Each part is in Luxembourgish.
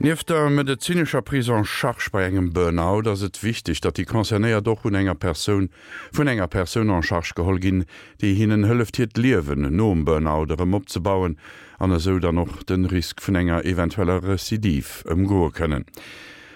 Nieft der medezinescher Prise en charge bei engem Burnout ass et wichteg, datt déi Concernéiert och un enger Persoun vun enger Persoun en charge geholl ginn, déi hinnen hëlleft hiert Liewen nom Burnout erëm opzebauen an esou dann och de Risk vun enger eventueller Recidive ëmgoe kënnen.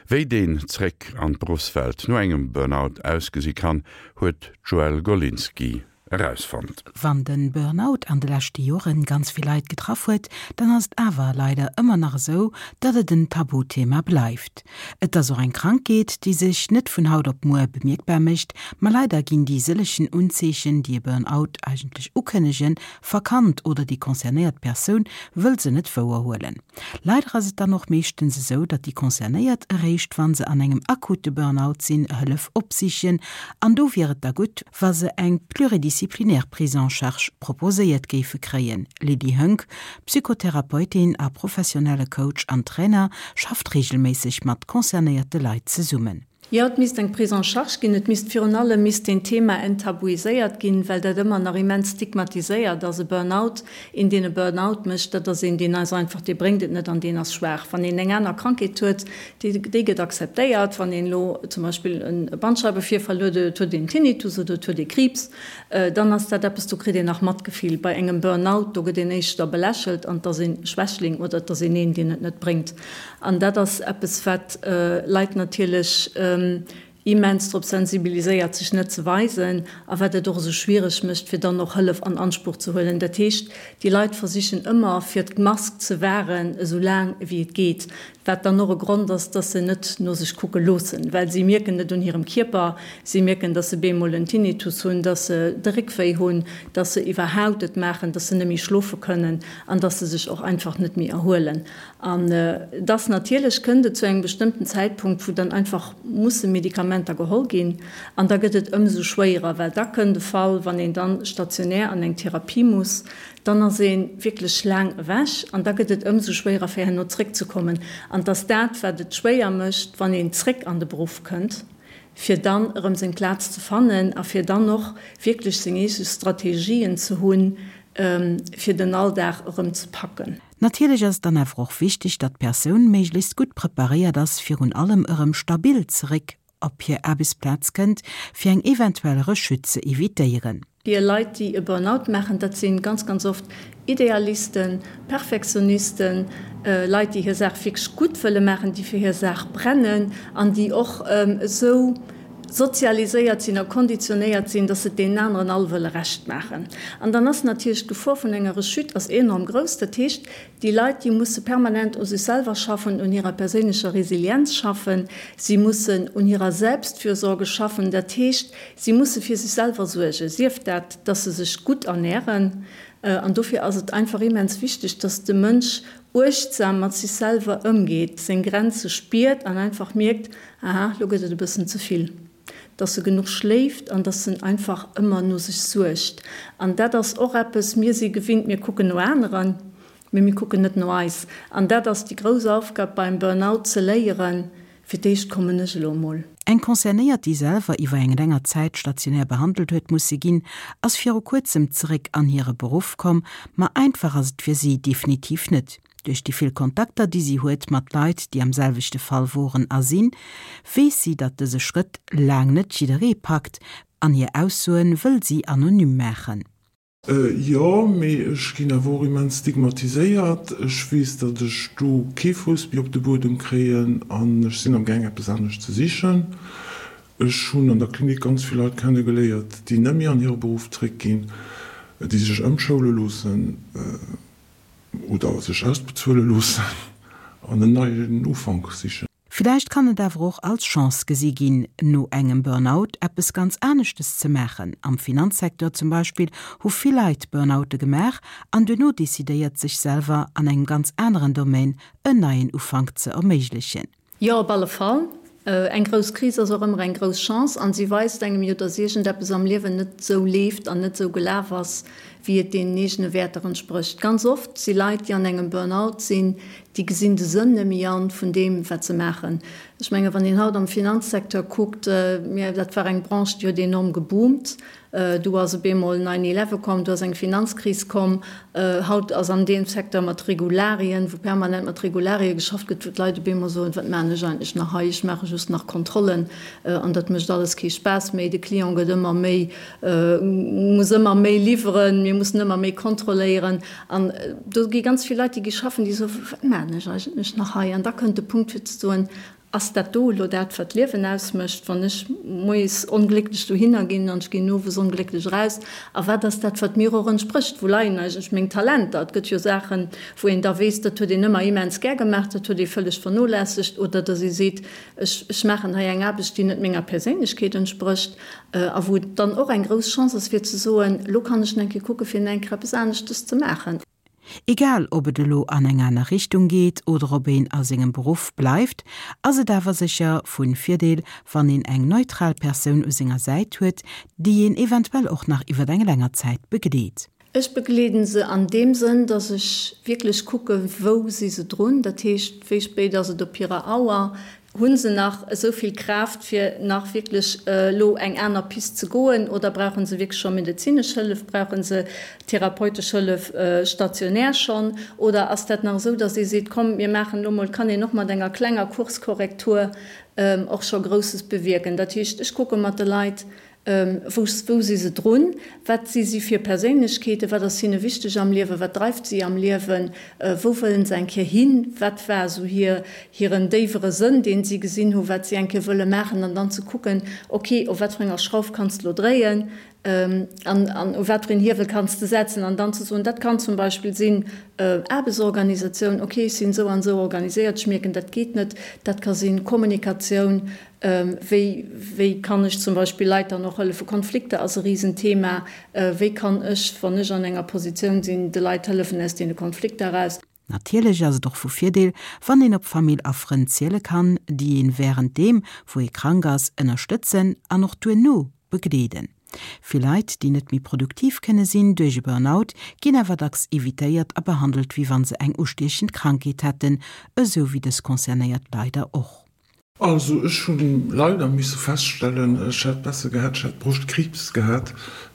Wéi deen Zréck an d'Beruffswelt no engem Burnout ausgesi kann, huet d'Joëlle Golinski erausfonnt. Wann den Burnout an de leschte Joren ganz vill Leit getraff huet, dann ass et awer leider ëmmer nach esou, datt et en Tabuthema bleift. Et ass och eng Krankheet, déi sech net vun haut op muer bemierkbar mécht, ma leider ginn déi sëllechen Unzeechen, déi e Burnout eigentlech ukënnegen, verkannt oder déi concernéiert Persoun wëll se net wouerhuelen. Leider ass et dann och meeschtens esou, datt déi Concernéiert eréischt wa se an engem akute Burnout sinn, Hëllef opsichen. An do wier et da gutt, wa se eng pluridisciplinaire Prise en charge proposéiert géife kréien. Lydie Höngg, Psychotherapeutin a professionelle Coach an Trainer, schafft reegelméisseg mat concernéierte Leit zesummen. Jo, et misst eng Prise en charge ginn. Et misst virun allem misst deen Thema enttabuiséiert ginn, well dat ëmmer nach immens stigmatiséiert ass. E Burnout, een deen e Burnout mécht, dat ass een deen ass einfach, dee bréngt et net an deen ass schwaach. Wann een eng aner Krankheet huet, déi déi gëtt akzeptéiert. Wann een elo zum Beispill e Bandscheiwevirfall huet oder et huet een Tinnitus oder et huet ee Kriibs, dann ass dat eppes, do kritt een nach Matgefill. Bei engem Burnout, do gëtt een éischter belächelt an et ass ee Schwächling oder et ass een een, deen et net bréngt. An dat ass eppes, wat Leit natierlech immens drop sensibiliséiert, sech net ze weisen, a wat et och esou schwiereg mécht, fir dann och Hëllef an Anspuch ze huelen. Dat heescht, déi Leit versichen ëmmer, fir d'Mask ze wahren, esou laang wéi et geet, wat dann och e Grond ass, dass se net no sech kucke loossen, well si mierken et un hirem Kierper, si mierken, dass se bemol en Tinnitus hunn, dass se de Réck wéi hunn, dass se iwwerhaupt et maachen, dass se net méi schlofe kënnen an dass se sech och einfach net méi erhuelen. An dass natierlech kënnt et zu engem bestëmmten Zäitpunkt, wou dann einfach musse Medikamenter geholl ginn. An da gëtt et ëmsou schwéierer, well da kënnt e Fall, wann een dann stationär an eng Therapie muss, dann ass ee wierklech laang ewech an da gëtt et ëmsou schwéierer, fir herno zréckzekommen. An dass dat, wat et schwéier mécht, wann een zréck an de Beruff kënnt, fir dann erëm seng Plaz ze fannen a fir dann och wierklech seng eege Strategien ze hunn, fir den Alldag erëm ze packen. Natierlech ass et dann awer och wichteg, datt d'Persoun méiglechst gutt preparéiert ass, virun allem erëm stabil zeréck op hir Aarbechtsplaz kënnt, fir eng eventuell Rechute ze evitéieren. Déi Leit, déi e Burnout maachen, dat si ganz, ganz oft Idealisten, Perfektionisten, Leit, déi hir Saach wierklech gutt wëlle maachen, déi fir hir Saach brennen an déi och esou sozialiséiert sinn a konditionéiert sinn, dass se et deenen aneren all wëlle Recht maachen. An dann ass natierlech d'Gefor vun enger Rechute ass enorm grouss. Dat heescht, déi Leit, déi musse permanent u sech selwer schaffen, un hirer perséinlecher Resilienz schaffen, si mussen un hirer Selbstfürsorge schaffen. Dat heescht, si musse fir sech selwer suergen, sief dat, dass se sech gutt ernären. An dofir ass et einfach immens wichteg, dass de Mënsch uechtsam mat sech selwer ëmgeet, seng Grenze spiert an einfach mierkt, Aha, lo gëtt et e bëssen ze vill. Dass e genuch schléift an dass en einfach ëmmer no sech suergt. An dat ass och eppes, mir si gewinnt, mir kucken no aneren, mee mir kucken net no eis. An dat ass déi grouss Aufgab beim Burnout, ze léieren, fir d'éischt kommen ech elo emol. Eng Concernéiert, déi selwer iwwer eng länger Zäit stationär behandelt huet musse ginn, ass viru kuerzem zeréck an hire Beruff komm, ma einfach ass et fir si definitiv net. Duerch déi vill Kontakter, déi si huet mat Leit, déi am selwechte Fall woren a sinn, weess si, datt dëse Schrëtt laang net jidderee packt an hir Aussoen wëll si anonym maachen. Jo, mee ech ginn awer och immens stigmatiséiert. Ech weess, datt ech do kee Fouss méi op de Buedem kréien an ech sinn am gaang eppes anescht ze sichen. Ech hunn an der Klinik ganz vill Leit kenne geléiert, déi net méi an hire Beruff zréckginn, déi sech ëmschoule loossen. Oder sech ausbezuele loossen an en neien Ufank sichen. Villäicht kann et awer och als Chance gesi ginn, no engem Burnout eppes ganz aneschtes ze maachen. Am Finanzsecteur zum Beispill hu vill Leit Burnoute gemaach an duerno decidéiert, sech selwer an engem ganz aneren Domaine en neien Ufank ze erméiglechen. Jo, op alle Fall. Eng grouss Kris ass och ëmmer eng grouss Chance an si weist engem jo, dass iergendeppes am Liewen net esou leeft an net esou gelaf ass, wéi et deenen eegene Wäerter entsprécht. Ganz oft si Leit, déi an engem Burnout sinn, déi gesinn de Sënn net méi an vun deem, wat se maachen. Ech menge wann een haut am Finanzsecteur kuckt, mir, dat war eng Branche, déi huet enorm geboomt. Du ass op eemol Nine Eleven komm, du ass eng Finanzkris komm. Haut ass an deem Secteur mat Regularien, wou permanent mat Regularie geschafft gëtt, wou d'Leit op eemol soen, wat maachen ech eigentlech nach hei, ech maache just nach Kontrollen an dat mécht alles kee Spaass méi. De Client gëtt ëmmer méi, muss ëmmer méi liwweren, mir mussen ëmmer méi kontrolléieren. An do gi ganz vill Leit, déi gi schaffen, déi soen, wat maachen ech eigentlech nach hei? An da kënnt de Punkt fir ze soen, Ass dat do elo dat, wat d'Liewen ausmécht, wann ech moies onglécklech dohinner ginn an ech ginn owes onglécklech eraus? A wat ass dat, wat mir och entsprécht? Wou leien eigentlech meng Talenter? Et gëtt jo Saachen, wou een da weess, dat huet een ëmmer immens gär gemaach, dat huet ee vëlleg vernolässegt. Oder datt ee seet, ech, ech maachen hei eng Aarbecht, déi net menger Perséinlechkeet entsprécht. A wou et dann och eng grouss Chance ass, fir ze soen, elo kann ech nach eng Kéier kucken, fir nach eng Kéier eppes aneschtes ze maachen. Egal ob et elo an eng aner Richtung geet oder ob een a sengem Beruff bleift, ass et awer sécher vun Virdeel wann een eng neutral Persoun u senger Säit huet, déi een eventuell och nach iwwert eng länger Zäit begleet. Ech begleeden se an deem Sënn, dass ech wierklech kucke wou si se drun, dat heescht wéi spéit ass et op hirer Auer, Hu se nach esou vill Kraaft, fir nach wierklech elo eng aner Pist ze goen, oder brauche se wierklech scho medezinesch Hëllef, brauche se therapeutesch Hëllef stationär schonn, oder ass dat nach esou, datt ee seet, komm mir maachen elo mol, kann een och mat enger klenger Kurskorrektur och scho Grousses bewierken. Dat heescht, ech kucke mat de Leit, Wou wou si se drun? Wat si si fir Perséinlechkeeten? Wat ass hinne wichteg am Liewen? Wat dreift si am Liewen? Wou wëllen se eng Kéier hin? Wat war esou hir hiren déiwere Sënn, deen si gesinn hu wat si eng Kéier wëlle maachen? An dann ze kucken, ok, op wat fir enger Schrauf kanns de lo dréien an an u wat fir een Hiewel kanns de setzen? An dann ze soen, dat kann zum Beispill sinn Aarbechtsorganisatioun, ok, ech sinn esou an esou organiséiert, ech mierken, dat geet net. Dat ka sinn Kommunikatioun, Wéi, wéi kann ech zum Beispill Leit dann och hëllefen? Konflikter ass e Risenthema. Wéi kann ech, wann ech an enger Positioun sinn, de Leit hëllefen aus deene Konflikter eraus? Natierlech ass et och vu Virdeel, wann een op Famill a Frënn ziele kann, déi een wärend deem, wou ee krank ass, ënnerstëtzen an och duerno begleeden. Vill Leit, déi net méi produktiv kënne sinn duerch e Burnout, ginn awer dacks evitéiert a behandelt, wéi wann se eng ustiechend Krankheet hätten, esou wéi dës Concernéiert leider och. Also ech hu leider misse feststellen, ech hätt besser gehat, ech hätt Broschtkriibs gehat.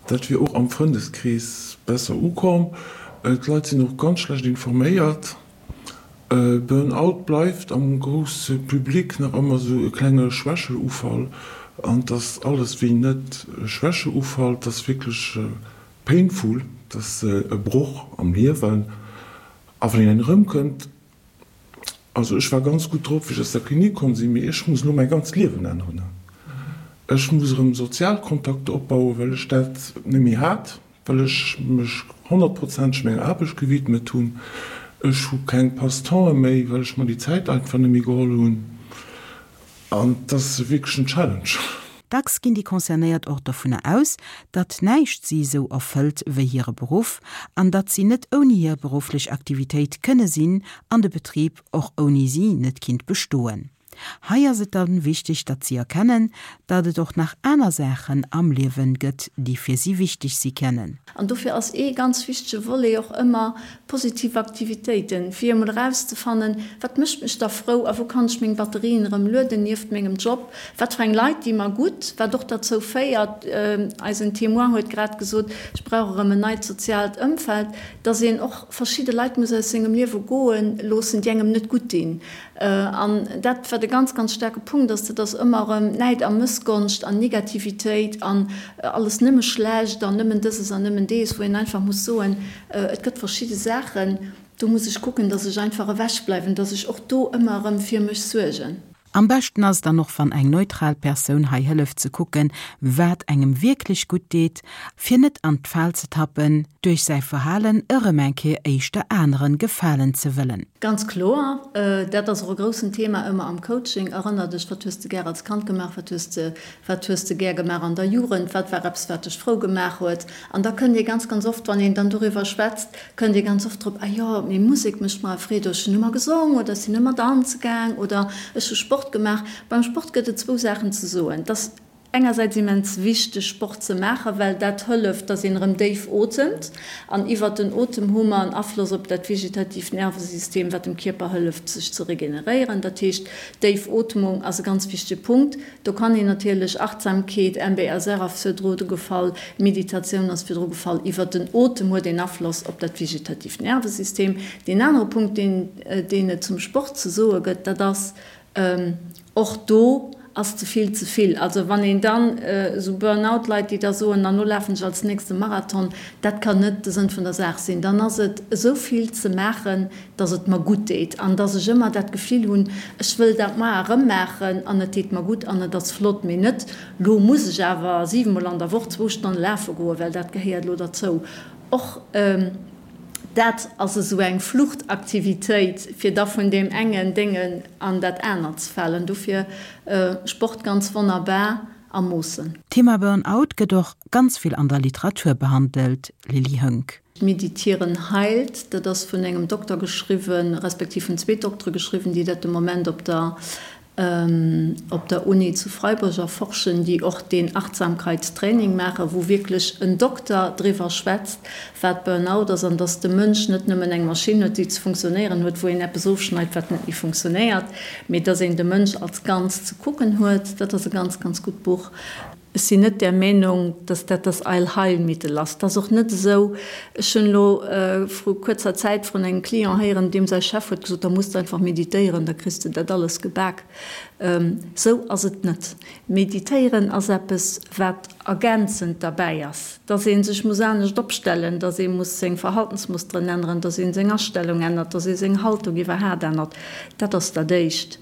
Dat wier och am Frëndeskrees besser ukomm. D'Leit sinn och ganz schlecht informéiert. Burn-out bleift am grousse Public nach ëmmer esou e klenge Schwächeufall. An et ass alles wéi net e Schwächeufall, et ass wierklech painful, et ass e Broch am Liewen. A wann een erëmkënnt, Also ech war ganz gutt drop wéi ech aus der Klinik komm sinn, mee ech muss elo mäi ganzt Liewen änneren. Ech muss erëm sozial Kontakter opbauen, well ech dat net méi hat, well ech mech honnertprozenteg menger Aarbecht gewidmet hunn. Ech hu keng Passe-temps'e méi, well ech mer déi Zäit einfach net méi geholl hunn. An et ass wierklech en Challenge. Dacks ginn déi Concernéiert och dovunner aus, datt näischt si esou erfëllt wéi hire Beruff an datt si net ouni hir berufflech Aktivitéit kënne sinn an de Betrib och ouni si net kinnt bestoen. Hei ass et dann wichteg, datt si erkennen, datt et och nach aner Saachen am Liewen gëtt, déi fir si wichteg si kennen. An dofir ass ee ganz wichtege Volet och ëmmer positiv Aktivitéiten, fir emol erauszefannen, wat mécht mech da frou a wou kann ech meng Batterien erëm lueden nieft mengem Job, wat fir eng Leit di mer gutt, wat och derzou féiert, eisen Témoin huet grad gesot, ech brauch erëm en neit soziaalt Ëmfeld, dass een och verschidde Leit muss aus sengem Liewe goe loossen, déi engem net gutt dinn. An dat, wat e ganz, ganz staarke Punkt ass, dat ass ëmmer erëm Näid a Mëssgonscht an Negativitéit an alles nëmme schlecht an nëmmen dëses an nëmmen dees, wou een einfach muss soen, et gëtt verschidde Saachen, do muss ech kucken, dass ech einfach ewechbleiwen, dass ech och do ëmmer erëm fir mech suergen. Am beschten ass et dann och wann eng neutral Persoun hei hëlleft ze kucken, wat engem wierklech gutt deet, fir net an d'Fal ze tappen, duerch säi Verhalen erëm eng Kéier éischter aneren gefalen ze wëllen. Ganz kloer, dat ass och e groussen Thema ëmmer am Coaching. Erënner dech, wat hues de gär als Kand gemaach, wat hues de, wat hues de gär gemaach an der Jugend, wat war eppes wat dech frou gemaach huet? An da kënnt ee ganz, ganz oft, wann een dann doriwwer schwätzt, kënnt ee ganz oft drop, ah jo, mee Musek mécht mer Freed, oder ech hunn ëmmer gesong, oder ech sinn ëmmer danze gaang, oder ech hu Sport gemaach. Beim Sport gëtt et zwou Saachen ze soen. Et ass. engersäits immens wichteg Sport ze maachen, well dat hëlleft, dass een erëm déif otemt an iwwert den Otem hu mer en Afloss op dat vegetatiivt Nervesystem, wat dem Kierper hëlleft sech ze regeneréieren. Dat heescht, déif Ootmung ass e ganz wichtege Punkt. Do kann een natierlech Achtsamkeet, MBSR ass virdru gefall, Meditatioun ass virdru gefall, iwwert den Otem huet een Afloss op dat vegetatiivt Nervesystem. Deen anere Punkt, deen deen et zum Sport ze soe gëtt, dat ass, Och do ass ze vill ze vill. Also wann een dann esou Burn-out-Leit, déi da soen, an lo lafen ech als nächst e Marathon, dat kann net de Sënn vun der Saach sinn. Dann ass et esou vill ze maachen, dass et mer gutt deet an dass ech ëmmer dat Gefill hunn, ech wëll dat mar erëm maachen an et deet mer gutt an et ass flott, mee net, lo muss ech awer siwemol an der Woch zwou Stonne lafe goen, well dat gehéiert elo derzou. Och dat ass esou eng Fluchtaktivitéit, fir da vun deem engen Déngen an dat anert ze falen. Dofir Sport ganz wonnerbar a Moossen. D'Thema Burn-out gëtt och ganz vill an der Literatur behandelt, Lily Höngg. Meditieren heilt, dat ass vun engem Dokter geschriwwen, respektiv vun zwee Doktere geschriwwen, déi dat de Moment op der op der Uni zu Freiburg erforschen, déi och deen Achtsamkeitstraining maachen, wou wierklech en Dokter driwwer schwätzt, wat Burnout ass an dass de Mënsch net nëmmen eng Maschinn huet, déi ze funktionéieren huet, wou een eppes ofschneit, wat net méi funktionéiert, mee dass een de Mënsch als Ganzt ze kucken huet. Dat ass e ganz, ganz gutt Buch. Ech sinn net där Meenung, dass dat das Allheilmittel ass. Et ass och net esou, ech hunn elo vru kuerzer Zäit vrun engem Client héieren, deem säi Chef huet gesot, da muss de einfach meditéieren, da kriss de dat alles gebak. Esou ass et net. Meditéieren ass eppes, wat ergänzend derbäi ass, dass ee sech muss anescht opstellen, dass ee muss seng Verhaltensmusteren änneren, dass ee seng Astellung ännert, dass ee seng Haltung iwwerhaat ännert. Dat ass dat Éischt.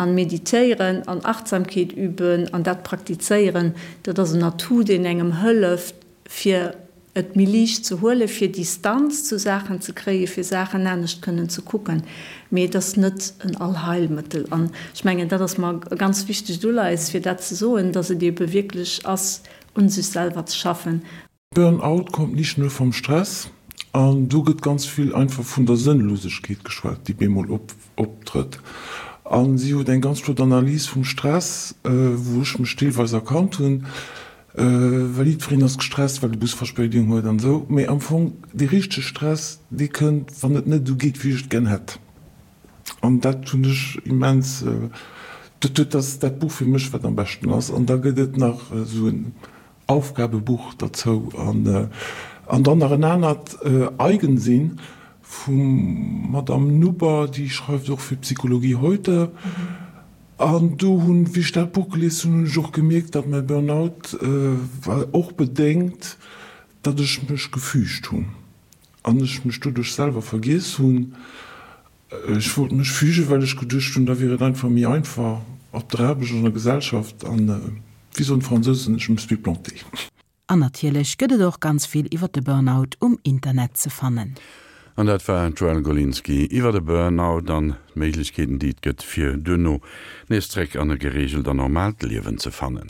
An meditéieren an Achtsamkeet üben an dat praktizéieren, dat ass en Atout, deen engem hëlleft, fir et méi liicht ze huelen, fir Distanz zu Saachen ze kréien, fir Saachen anescht kënnen ze kucken. Mee et ass net en Allheilmëttel. An ech mengen, dat ass mer e ganz wichtegt Uleies, fir dat ze soen, dass et eebe wierklech ass, un sech selwer ze schaffen. Burn-out kommt nicht nur vom Stress an do gëtt ganz vill einfach vun der Sënnlosegkeet geschwat, déi bemol optrëtt. A si huet eng ganz flott Analys vum Stress, wou ech mech deelweis erkannt hunn, well jiddwereen ass gestresst, well de Bus Verspéidung huet an esou, mee am Fong dee richtege Stress, dee kënnt, wann et net esou geet, wéi ech et gär hätt. An dat hunn ech immens, dat huet, dat ass dat Buch fir mech, wat am beschten ass. An da gëtt et nach esou en Aufgabebuch derzou an an dann nach en anert Eigensinn vum Madame Nuber, déi schreift och fir Psychologie heute. An do hunn, wéi ech dat Buch gelies hunn, hunn ech och gemierkt, datt mäi Burnout war och bedéngt, datt ech mech gefügt hunn an ech mech doduerch selwer vergiess hunn. Ech wollt mech fügen, well ech geduecht hunn, da wier et einfach méi einfach op der Aarbecht, an der Gesellschaft an, wéi soen d'Fransousen, je me suis planté. An natierlech gëtt et och ganz vill iwwer de Burnout um Internet ze fannen. An dat war d'Joëlle Golinski iwwer de Burnout an d'Méiglechkeeten, déi et gëtt, fir duerno nees zréck an e gereegelt an normaalt Liewen ze fannen.